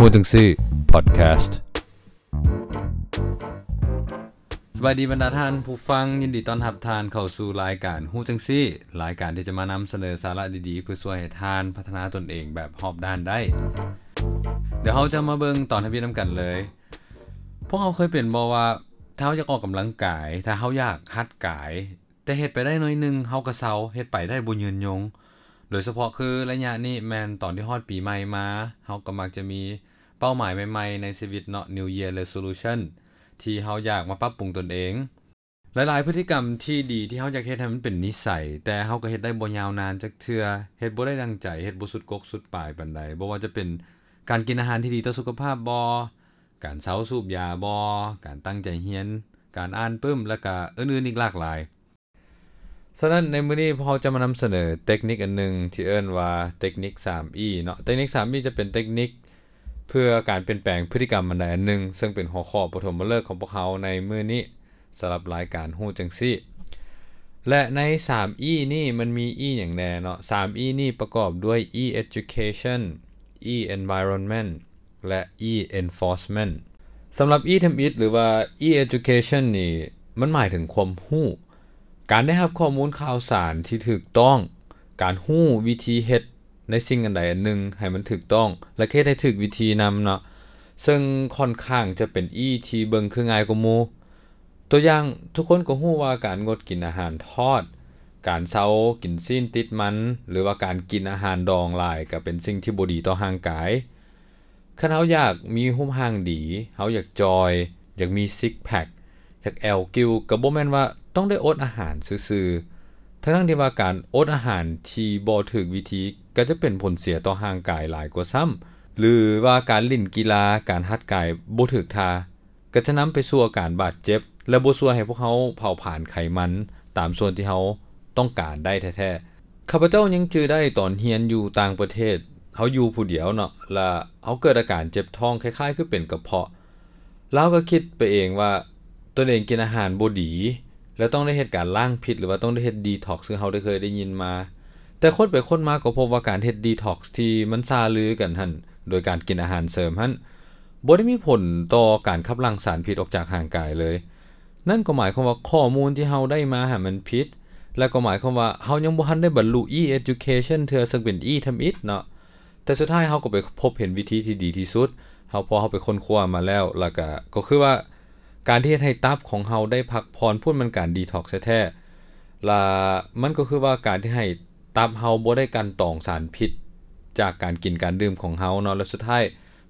ຮູ້ຈັ່ງຊີ້ Podcast. ສະບາຍດີບັນດາທ່ານຜູ້ຟັງ, ຍິນດີຕ້ອນຮັບທ່ານເຂົ້າສູ່ລາຍການຮູ້ຈັ່ງຊີ້, ລາຍການທີ່ຈະມານຳສະເໜີສາລະດີໆ ເພື່ອຊ່ວຍໃຫ້ທ່ານພັດທະນາຕົນເອງແບບຮອບດ້ານໄດ້. ດຽວເຮົາຈະມາເບິ່ງຕອນທຳອິດນຳກັນເລີຍ. ພວກເຮົາເຄີຍເປັນບໍ່ວ່າ ຖ້າເຮົາຢາກອອກກຳລັງກາຍ, ຖ້າເຮົາຢາກຫັດກາຍ, ແຕ່ເຮັດໄປໄດ້ໜ້ອຍໜຶ່ງ ເຮົາກໍເຊົາ, ເຮັດໄປໄດ້ບໍ່ຍືນຍົງ. ໂດຍສະເພາະຄືໄລຍະນີ້ແມ່ນຕອນທີ່ຮອດປີໃໝ່ມາ, ເຮົາກໍມັກຈະມີເປົ້າໝາຍໃໝ່ໆໃນຊີວິດເນາະ, New Year Resolution ທີ່ເຮົາຢາກມາປັບປຸງຕົນເອງ. ຫຼາຍໆພຶດຕິກຳທີ່ດີທີ່ເຮົາຢາກເຮັດໃຫ້ມັນເປັນນິໄສ, ແຕ່ເຮົາກໍເຮັດໄດ້ບໍ່ຍາວນານຈັກເທື່ອ, ເຮັດບໍ່ໄດ້ດັ່ງໃຈ, ເຮັດບໍ່ສຸດກົກສຸດປາຍປານໃດ. ບໍ່ວ່າຈະເປັນການກິນອາຫານທີ່ດີຕໍ່ສຸຂະພາບບໍ່, ການເຊົາສູບຢາບໍ່, ການຕັ້ງໃຈຮຽນ, ການອ່ານປຶ້ມ ແລະ ກະອື່ນໆອີກຫຼາກຫຼາຍ. ສະນັ້ນໃນມື້ນີ້ພວກເຮົາຈະມານຳສະເໜີເຕັກນິກອັນໜຶ່ງທີ່ເອີ້ນວ່າເຕັກນິກສາມອີເນາະ. ເຕັກນິກສາມອີຈະເປັນເຕັກນິກເພື່ອການປ່ຽນແປງພຶດຕິກຳອັນໃດອັນໜຶ່ງ, ເຊິ່ງເປັນຫົວຂໍ້ປະຖົມມະເລີກຂອງພວກເຮົາໃນມື້ນີ້ ສຳລັບລາຍການຮູ້ຈັ່ງຊີ້. ແລະ ໃນສາມອີນີ້ມັນມີອີຫຍັງແດ່ເນາະ? ສາມອີນີ້ປະກອບດ້ວຍ E education, E environment ແລະ E enforcement. ສຳລັບ E ທຳອິດ ຫຼືວ່າ E education ນີ້ ມັນໝາຍເຖິງຄວາມຮູ້, ການໄດ້ຮັບຂໍ້ມູນຂ່າວສານທີ່ຖືກຕ້ອງ, ການຮູ້ວິທີເຮັດໃນສິ່ງອັນໃດອັນໜຶ່ງໃຫ້ມັນຖືກຕ້ອງ ແລະ ເຮັດໃຫ້ຖືກວິທີນຳເນາະ, ເຊິ່ງຂ້ອນຂ້າງຈະເປັນ E ທີ່ເບິ່ງຄືງ່າຍກວ່າໝູ່. ຕົວຢ່າງ, ທຸກຄົນກໍຮູ້ວ່າການງົດກິນອາຫານທອດ, ການເຊົາກິນຊີ້ນຕິດມັນ ຫຼືວ່າການກິນອາຫານດອງຫຼາຍກໍເປັນສິ່ງທີ່ບໍ່ດີຕໍ່ຮ່າງກາຍ. ຄັນເຮົາຢາກມີຮູບຮ່າງດີ, ເຮົາຢາກຈ່ອຍ, ຢາກມີຊິກແພັກ, ຢາກແອວກິ້ວ, ກໍບໍ່ແມ່ນວ່າຕ້ອງໄດ້ອົດອາຫານຊື່ໆ, ທັງໆທີ່ວ່າການອົດອາຫານທີ່ບໍ່ຖືກວິທີກໍຈະເປັນຜົນເສຍຕໍ່ຮ່າງກາຍຫຼາຍກວ່າຊ້ຳ, ຫຼືວ່າການຫຼິ້ນກິລາ, ການຮັດກາຍບໍ່ຖືກທ່າ ກໍຈະນຳໄປສູ່ອາການບາດເຈັບ ແລະ ບໍ່ຊ່ວຍໃຫ້ພວກເຮົາເຜົາຜານໄຂມັນຕາມສ່ວນທີ່ເຮົາຕ້ອງການໄດ້ແທ້ໆ. ຂ້າພະເຈົ້າຍັງຈື່ໄດ້ຕອນຮຽນຢູ່ຕ່າງປະເທດ, ເຮົາຢູ່ຜູ້ດຽວເນາະ, ລະເຮົາເກີດອາການເຈັບທ້ອງຄ້າຍໆຄືເປັນກະເພາະ. ລະເຮົາກໍຄິດໄປເອງວ່າຕົນເອງກິນອາຫານບໍ່ດີ ແລະ ຕ້ອງໄດ້ເຮັດການລ້າງພິດ ຫຼືວ່າຕ້ອງໄດ້ເຮັດດີທັອກ ຄືເຮົາໄດ້ເຄີຍໄດ້ຍິນມາ. ແຕ່ຄົ້ນໄປຄົ້ນມາກໍພົບວ່າການເຮັດດີທັອກທີ່ມັນຊ່າລືກັນຫັ້ນ ໂດຍການກິນອາຫານເສີມຫັ້ນ ບໍ່ໄດ້ມີຜົນຕໍ່ການຂັບຫຼັ່ງສານພິດອອກຈາກຮ່າງກາຍເລີຍ. ນັ້ນກໍໝາຍຄວາມວ່າຂໍ້ມູນທີ່ເຮົາໄດ້ມາຫັ້ນມັນຜິດ, ແລະ ກໍໝາຍຄວາມວ່າເຮົາຍັງບໍ່ທັນໄດ້ບັນລຸ E education ເທື່ອ, ເຊິ່ງເປັນ E ທຳອິດເນາະ. ແຕ່ສຸດທ້າຍເຮົາກໍໄປພົບເຫັນວິທີທີ່ດີທີ່ສຸດ, ເຮົາ, ເພາະເຮົາໄປຄົ້ນຄວ້າມາແລ້ວ, ແລ້ວກໍ, ກໍຄືວ່າການທີ່ເຮັດໃຫ້ຕັບຂອງເຮົາໄດ້ພັກຜ່ອນພຸ້ນ ມັນການ detox ແທ້ໆ, ລະມັນກໍຄືວ່າການທີ່ໃຫ້ຕັບເຮົາບໍ່ໄດ້ກັ່ນຕອງສານພິດຈາກການກິນການດື່ມຂອງເຮົາເນາະ. ແລະ ສຸດທ້າຍ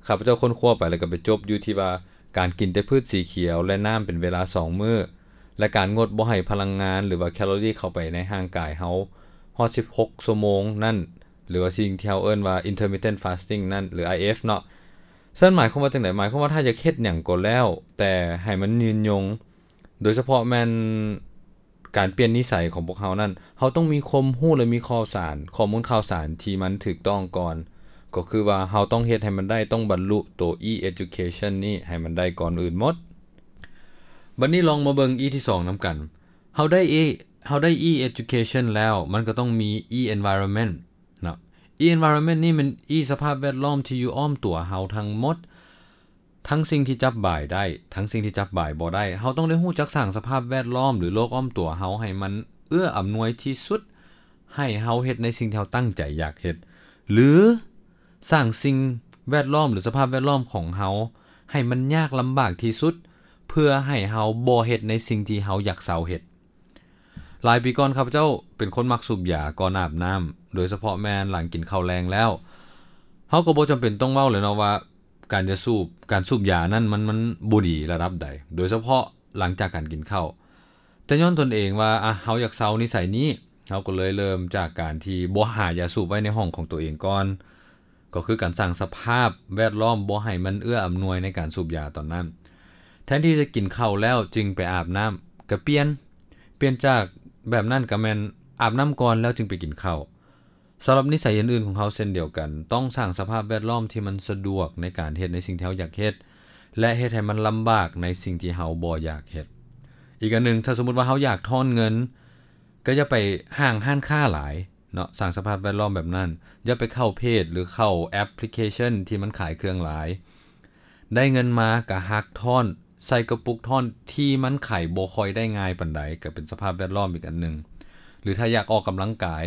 ຂ້າພະເຈົ້າຄົ້ນຄວ້າໄປ ແລ້ວກໍໄປຈົບຢູ່ທີ່ວ່າ ການກິນແຕ່ພືດສີຂຽວ ແລະ ນ້ຳເປັນເວລາສອງມື້ ແລະ ການງົດບໍ່ໃຫ້ພະລັງງານ ຫຼືວ່າແຄລໍຣີເຂົ້າໄປໃນຮ່າງກາຍເຮົາຮອດສິບຫົກຊົ່ວໂມງນັ້ນ ຫຼືວ່າສິ່ງທີ່ເຮົາເອີ້ນວ່າ intermittent fasting ນັ້ນ ຫຼື IF ເນາະ. ເຊິ່ງໝາຍຄວາມວ່າຈັ່ງໃດ? ໝາຍຄວາມວ່າຖ້າຢາກເຮັດຫຍັງກໍແລ້ວແຕ່ໃຫ້ມັນຍືນຍົງ, ໂດຍສະເພາະແມ່ນ ການປ່ຽນນິໄສຂອງພວກເຮົານັ້ນ, ເຮົາຕ້ອງມີຄວາມຮູ້ ແລະ ມີຂ່າວສານ, ຂໍ້ມູນຂ່າວສານທີ່ມັນຖືກຕ້ອງກ່ອນ, ກໍຄືວ່າເຮົາຕ້ອງເຮັດໃຫ້ມັນໄດ້, ຕ້ອງບັນລຸໂຕ E education ນີ້ໃຫ້ມັນໄດ້ກ່ອນອື່ນໝົດ. ບັດນີ້ລອງມາເບິ່ງ E ທີສອງນຳກັນ. ເຮົາໄດ້ E, ເຮົາໄດ້ E education ແລ້ວ, ມັນກໍຕ້ອງມີ E environment ເນາະ. E environment ນີ້ແມ່ນ E ສະພາບແວດລ້ອມທີ່ຢູ່ອ້ອມຕົວເຮົາທັງໝົດ. ທັງສິ່ງທີ່ຈັບບາຍໄດ້, ທັງສິ່ງທີ່ຈັບບາຍບໍ່ໄດ້, ເຮົາຕ້ອງໄດ້ຮູ້ຈັກສ້າງສະພາບແວດລ້ອມ ຫຼື ໂລກອ້ອມຕົວເຮົາໃຫ້ມັນເອື້ອອຳນວຍທີ່ສຸດ, ໃຫ້ເຮົາເຮັດໃນສິ່ງທີ່ເຮົາຕັ້ງໃຈຢາກເຮັດ ຫຼື ສ້າງສິ່ງແວດລ້ອມ ຫຼື ສະພາບແວດລ້ອມຂອງເຮົາໃຫ້ມັນຍາກລຳບາກທີ່ສຸດ ເພື່ອໃຫ້ເຮົາບໍ່ເຮັດໃນສິ່ງທີ່ເຮົາຢາກເຊົາເຮັດ. ຫຼາຍປີກ່ອນ ຂ້າພະເຈົ້າເປັນຄົນມັກສູບຢາກ່ອນອາບນ້ຳ, ໂດຍສະເພາະແມ່ນຫຼັງກິນເຂົ້າແລງແລ້ວ. ເຮົາກໍບໍ່ຈຳເປັນຕ້ອງເວົ້າແລ້ວເນາະວ່າ ການຈະສູບ, ການສູບຢານັ້ນມັນ, ມັນບໍ່ດີລະດັບໃດ, ໂດຍສະເພາະຫຼັງຈາກການກິນເຂົ້າ. ແຕ່ຍ້ອນຕົນເອງວ່າ, ອະ, ເຮົາຢາກເຊົານິໄສນີ້, ເຮົາກໍເລີຍເລີ່ມຈາກການທີ່ບໍ່ຫາຢາສູບໄວ້ໃນຫ້ອງຂອງຕົວເອງກ່ອນ. ກໍຄືການສ້າງສະພາບແວດລ້ອມບໍ່ໃຫ້ມັນເອື້ອອຳນວຍໃນການສູບຢາຕອນນັ້ນ. ແທນທີ່ຈະກິນເຂົ້າແລ້ວຈຶ່ງໄປອາບນ້ຳ, ກະປ່ຽນ, ປ່ຽນຈາກແບບນັ້ນກະແມ່ນອາບນ້ຳກ່ອນແລ້ວຈຶ່ງໄປກິນເຂົ້າ. ສຳລັບນິໄສອື່ນໆຂອງເຮົາເຊັ່ນດຽວກັນ, ຕ້ອງສ້າງສະພາບແວດລ້ອມທີ່ມັນສະດວກໃນການເຮັດໃນສິ່ງທີ່ເຮົາຢາກເຮັດ ແລະ ເຮັດໃຫ້ມັນລຳບາກໃນສິ່ງທີ່ເຮົາບໍ່ຢາກເຮັດ. ອີກອັນໜຶ່ງ, ຖ້າສົມມຸດວ່າເຮົາຢາກທ້ອນເງິນ, ກໍຢ່າໄປຫ້າງຮ້ານຄ້າຫຼາຍ, ເນາະ ສ້າງສະພາບແວດລ້ອມແບບນັ້ນ. ຢ່າໄປເຂົ້າເພຈ ຫຼື ເຂົ້າແອັບພລິເຄຊັນທີ່ມັນຂາຍເຄື່ອງຫຼາຍ. ໄດ້ເງິນມາກະຫັກທ້ອນ ໃສ່ກະປຸກທ້ອນທີ່ມັນໄຂບໍ່ຄ່ອຍໄດ້ງ່າຍປານໃດ ກະເປັນສະພາບແວດລ້ອມອີກອັນໜຶ່ງ. ຫຼື ຖ້າຢາກອອກກຳລັງກາຍ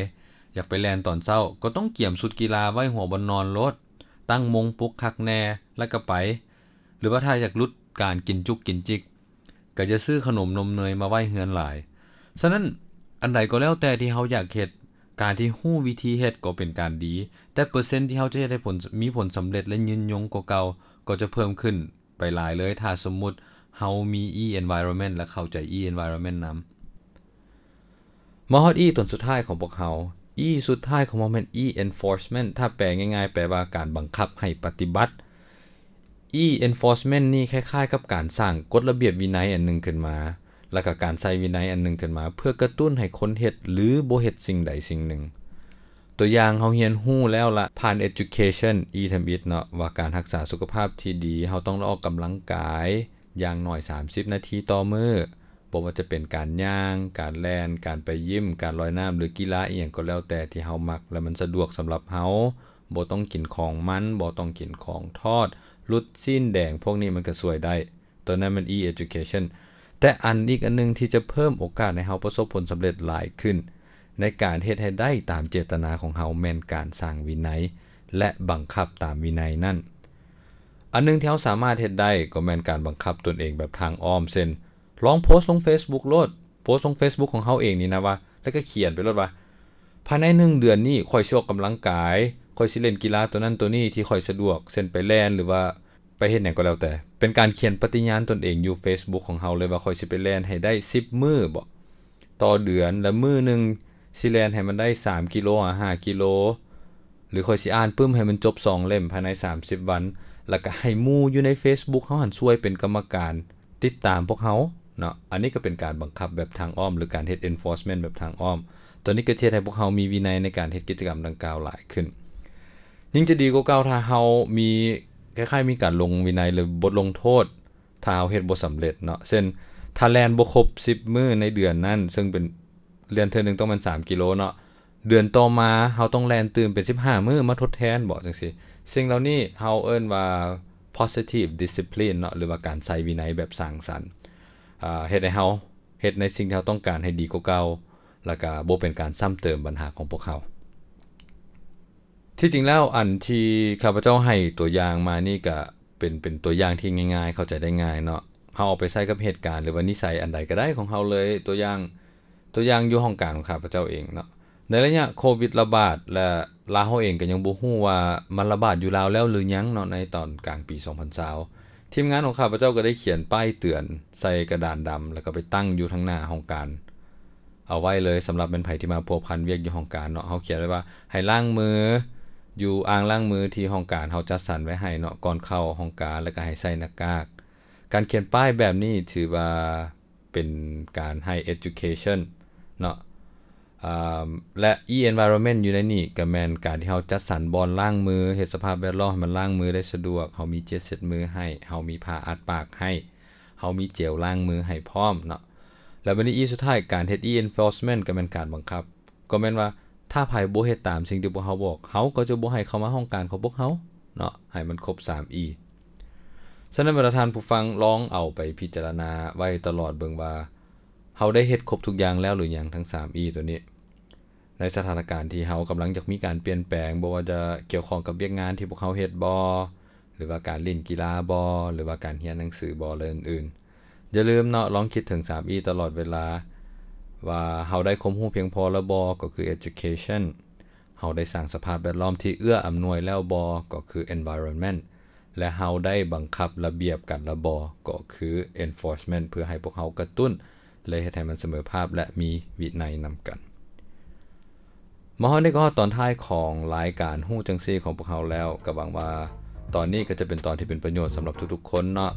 ຢາກໄປແລ່ນຕອນເຊົ້າ ກໍຕ້ອງກຽມຊຸດກິລາໄວ້ຫົວບ່ອນນອນໂລດ, ຕັ້ງໂມງປຸກຄັກແນ່ ແລ້ວກະໄປ. ຫຼືວ່າຖ້າຢາກຫຼຸດການກິນຈຸກກິນຈິກ ກະຢ່າຊື້ຂະໜົມນົມເນີຍມາໄວ້ເຮືອນຫຼາຍ. ສະນັ້ນ ອັນໃດກໍແລ້ວແຕ່ທີ່ເຮົາຢາກເຮັດ, ການທີ່ຮູ້ວິທີເຮັດກໍເປັນການດີ, ແຕ່ເປີເຊັນທີ່ເຮົາຈະເຮັດໃຫ້ຜົນ, ມີຜົນສຳເລັດ ແລະ ຍືນຍົງກວ່າເກົ່າ ກໍຈະເພີ່ມຂຶ້ນໄປຫຼາຍເລີຍ ຖ້າສົມມຸດເຮົາມີ E environment ແລະ ເຂົ້າໃຈ E environment ນຳ. ມາຮອດ E ຕົນສຸດທ້າຍຂອງພວກເຮົາ. E ສຸດທ້າຍຂອງພວກເຮົາແມ່ນ E enforcement ຖ້າແປງ່າຍໆ ແປວ່າການບັງຄັບໃຫ້ປະຕິບັດ. E enforcement ນີ້ຄ້າຍໆກັບການສ້າງກົດລະບຽບວິໄນອັນໜຶ່ງຂຶ້ນມາ ແລ້ວກະການໃສ່ວິໄນອັນໜຶ່ງຂຶ້ນມາ ເພື່ອກະຕຸ້ນໃຫ້ຄົນເຮັດ ຫຼື ບໍ່ເຮັດສິ່ງໃດສິ່ງໜຶ່ງ. ຕົວຢ່າງເຮົາຮຽນຮູ້ແລ້ວລະ ຜ່ານ education E ທຳອິດເນາະ ວ່າການຮັກສາສຸຂະພາບທີ່ດີ ເຮົາຕ້ອງໄດ້ອອກກຳລັງກາຍຢ່າງໜ້ອຍສາມສິບນາທີຕໍ່ມື້. ບໍ່ວ່າຈະເປັນການຍ່າງ, ການແລ່ນ, ການໄປຢິມ, ການລອຍນ້ຳ ຫຼື ກິລາອີ່ຫຍັງກໍແລ້ວແຕ່ທີ່ເຮົາມັກ ແລະ ມັນສະດວກສຳລັບເຮົາ, ບໍ່ຕ້ອງກິນຂອງມັນ, ບໍ່ຕ້ອງກິນຂອງທອດ, ຫຼຸດຊີ້ນແດງ, ພວກນີ້ມັນກະຊ່ວຍໄດ້. ຕົວນັ້ນແມ່ນ E education. ແຕ່ອັນອີກອັນໜຶ່ງທີ່ຈະເພີ່ມໂອກາດໃຫ້ເຮົາປະສົບຜົນສຳເລັດຫຼາຍຂຶ້ນ ໃນການເຮັດໃຫ້ໄດ້ຕາມເຈດຕະນາຂອງເຮົາ ແມ່ນການສ້າງວິໄນ ແລະ ບັງຄັບຕາມວິໄນນັ້ນ. ອັນໜຶ່ງທີ່ເຮົາສາມາດເຮັດໄດ້ກໍແມ່ນການບັງຄັບຕົນເອງແບບທາງອ້ອມ ເຊັ່ນ ລອງໂພສລົງ Facebook ໂລດ, ໂພສລົງ Facebook ຂອງເຮົາເອງນີ້ນະວ່າ ແລ້ວກໍຂຽນໄປໂລດວ່າ ພາຍໃນໜຶ່ງເດືອນນີ້ ຂ້ອຍຊິອອກກຳລັງກາຍ, ຂ້ອຍຊິເລ່ນກິລາໂຕນັ້ນໂຕນີ້ທີ່ຂ້ອຍສະດວກ ເຊັ່ນ ໄປແລ່ນ ຫຼືວ່າໄປເຮັດຫຍັງກໍແລ້ວແຕ່. ເປັນການຂຽນປະຕິຍານຕົນເອງຢູ່ Facebook ຂອງເຮົາເລີຍວ່າ ຂ້ອຍຊິໄປແລ່ນໃຫ້ໄດ້ສິບມື້ບໍ ຕໍ່ເດືອນ ແລະ ມື້ໜຶ່ງຊິແລ່ນໃຫ້ມັນໄດ້ສາມກິໂລ ຫາ ຫ້າກິໂລ ຫຼື ຂ້ອຍຊິອ່ານປຶ້ມໃຫ້ມັນຈົບສອງເຫຼັ້ມພາຍໃນສາມສິບວັນ ແລ້ວກະໃຫ້ໝູ່ຢູ່ໃນ Facebook ເຮົາຫັ້ນຊ່ວຍເປັນກຳມະການຕິດຕາມພວກເຮົາເນາະ. ອັນນີ້ກະເປັນການບັງຄັບແບບທາງອ້ອມ ຫຼື ການເຮັດ enforcement ແບບທາງອ້ອມ. ໂຕນີ້ກະຈະເຮັດໃຫ້ພວກເຮົາມີວິໄນໃນການເຮັດກິດຈະກຳດັ່ງກ່າວຫຼາຍຂຶ້ນ. ຍິ່ງຈະດີກວ່າເກົ່າ ຖ້າເຮົາມີ, ຄ້າຍໆ ມີການລົງວິໄນ ຫຼື ບົດລົງໂທດ ຖ້າເຮົາເຮັດບໍ່ສຳເລັດເນາະ. ເຊັ່ນ ຖ້າແລ່ນບໍ່ຄົບສິບມື້ໃນເດືອນນັ້ນ, ເຊິ່ງເປັນ ແລ່ນເທື່ອໜຶ່ງຕ້ອງແມ່ນສາມກິໂລເນາະ, ເດືອນຕໍ່ມາເຮົາຕ້ອງແລ່ນຕື່ມເປັນສິບຫ້າມື້ມາທົດແທນບໍ ຈັ່ງຊີ້. ສິ່ງເຫຼົ່ານີ້ເຮົາເອີ້ນວ່າ positive discipline ເນາະ ຫຼືວ່າການໃຊ້ວິໄນແບບສ້າງສັນ. ອາ, ເຮັດໃຫ້ເຮົາເຮັດໃນສິ່ງທີ່ເຮົາຕ້ອງການໃຫ້ດີກວ່າເກົ່າ ແລ້ວກະບໍ່ເປັນການຊ້ຳເຕີມບັນຫາຂອງພວກເຮົາ. ທີ່ຈິງແລ້ວ ອັນທີ່ຂ້າພະເຈົ້າໃຫ້ຕົວຢ່າງມານີ້ກະເປັນ, ເປັນຕົວຢ່າງທີ່ງ່າຍໆ ເຂົ້າໃຈໄດ້ງ່າຍເນາະ. ເຮົາເອົາໄປໃຊ້ກັບເຫດການ ຫຼືວ່ານິໄສອັນໃດກະໄດ້ຂອງເຮົາເລີຍ. ຕົວຢ່າງ, ຕົວຢ່າງຢູ່ຫ້ອງການຂອງຂ້າພະເຈົ້າເອງເນາະ. ໃນໄລຍະໂຄວິດລະບາດ ແລະ ລາວເຮົາເອງກະຍັງບໍ່ຮູ້ວ່າມັນລະບາດຢູ່ລາວແລ້ວຫຼືຍັງເນາະ ໃນຕອນກາງປີສອງພັນຊາວ ທີມງານຂອງຂ້າພະເຈົ້າກະໄດ້ຂຽນປ້າຍເຕືອນໃສ່ກະດານດຳ ແລ້ວກະໄປຕັ້ງຢູ່ທາງໜ້າຫ້ອງການ ເອົາໄວ້ເລີຍ ສຳລັບແມ່ນໃຜທີ່ມາພົວພັນວຽກຢູ່ຫ້ອງການເນາະ. ເຮົາຂຽນໄວ້ວ່າໃຫ້ລ້າງມືຢູ່ອ່າງລ້າງມືທີ່ຫ້ອງການເຮົາຈັດສັນໄວ້ໃຫ້ເນາະ ກ່ອນເຂົ້າຫ້ອງການ ແລ້ວກະໃຫ້ໃສ່ໜ້າກາກ. ການຂຽນປ້າຍແບບນີ້ຖືວ່າເປັນການໃຫ້ education ເນາະ. ອາ ແລະ e-environment ຢູ່ໃນນີ້ກະແມ່ນການທີ່ເຮົາຈັດສັນບ່ອນລ້າງມື, ເຮັດສະພາບແວດລ້ອມໃຫ້ມັນລ້າງມືໄດ້ສະດວກ, ເຮົາມີເຈັດເຊັດມືໃຫ້, ເຮົາມີຜ້າອັດປາກໃຫ້, ເຮົາມີເຈວລ້າງມືໃຫ້ພ້ອມເນາະ. ແລ້ວບາດນີ້ E ສຸດທ້າຍ ການເຮັດ e-enforcement ກໍແມ່ນການບັງຄັບ, ກໍແມ່ນວ່າຖ້າໃຜບໍ່ເຮັດຕາມສິ່ງທີ່ພວກເຮົາບອກ, ເຮົາກໍຈະບໍ່ໃຫ້ເຂົ້າມາຫ້ອງການຂອງພວກເຮົາເນາະ, ໃຫ້ມັນຄົບສາມ E. ສະນັ້ນ ບັນດາທ່ານຜູ້ຟັງ ລອງເອົາໄປພິຈາລະນາໄວ້ຕະຫຼອດເບິ່ງວ່າ ເຮົາໄດ້ເຮັດຄົບທຸກຢ່າງແລ້ວຫຼືຍັງ ທັງສາມ E ໂຕນີ້. ໃນສະຖານະການທີ່ເຮົາກຳລັງຢາກມີການປ່ຽນແປງ, ບໍ່ວ່າຈະກ່ຽວຂ້ອງກັບວຽກງານທີ່ພວກເຮົາເຮັດບໍ ຫຼືວ່າການຫຼິ້ນກິລາບໍ ຫຼືວ່າການຮຽນໜັງສືບໍ ແລະ ອື່ນໆ. ຢ່າລືມເນາະ, ລອງຄິດເຖິງສາມ E ຕະຫຼອດເວລາ ວ່າເຮົາໄດ້ຄວາມຮູ້ພຽງພໍແລ້ວບໍ ກໍຄື education, ເຮົາໄດ້ສ້າງສະພາບແວດລ້ອມທີ່ເອື້ອອຳນວຍແລ້ວບໍ ກໍຄື environment, ແລະ ເຮົາໄດ້ບັງຄັບລະບຽບກັນແລ້ວບໍ ກໍຄື enforcement ເພື່ອໃຫ້ພວກເຮົາກະຕຸ້ນ ແລະ ເຮັດໃຫ້ມັນສະເໝີພາບ ແລະ ມີວິໄນນຳກັນ. ມາຮອດນີ້ກໍຮອດຕອນທ້າຍຂອງລາຍການຮູ້ຈັ່ງຊີ້ຂອງພວກເຮົາແລ້ວ, ກໍຫວັງວ່າຕອນນີ້ກໍຈະເປັນຕອນທີ່ເປັນປະໂຫຍດສຳລັບທຸກໆຄົນເນາະ.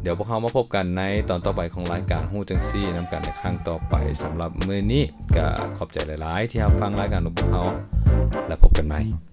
ດຽວພວກເຮົາມາພົບກັນໃນຕອນຕໍ່ໄປຂອງລາຍການຮູ້ຈັ່ງຊີ້ນຳກັນໃນຄັ້ງຕໍ່ໄປ. ສຳລັບມື້ນີ້ກໍຂອບໃຈຫຼາຍໆທີ່ຮັບຟັງລາຍການຂອງພວກເຮົາ ແລະ ພົບກັນໃໝ່.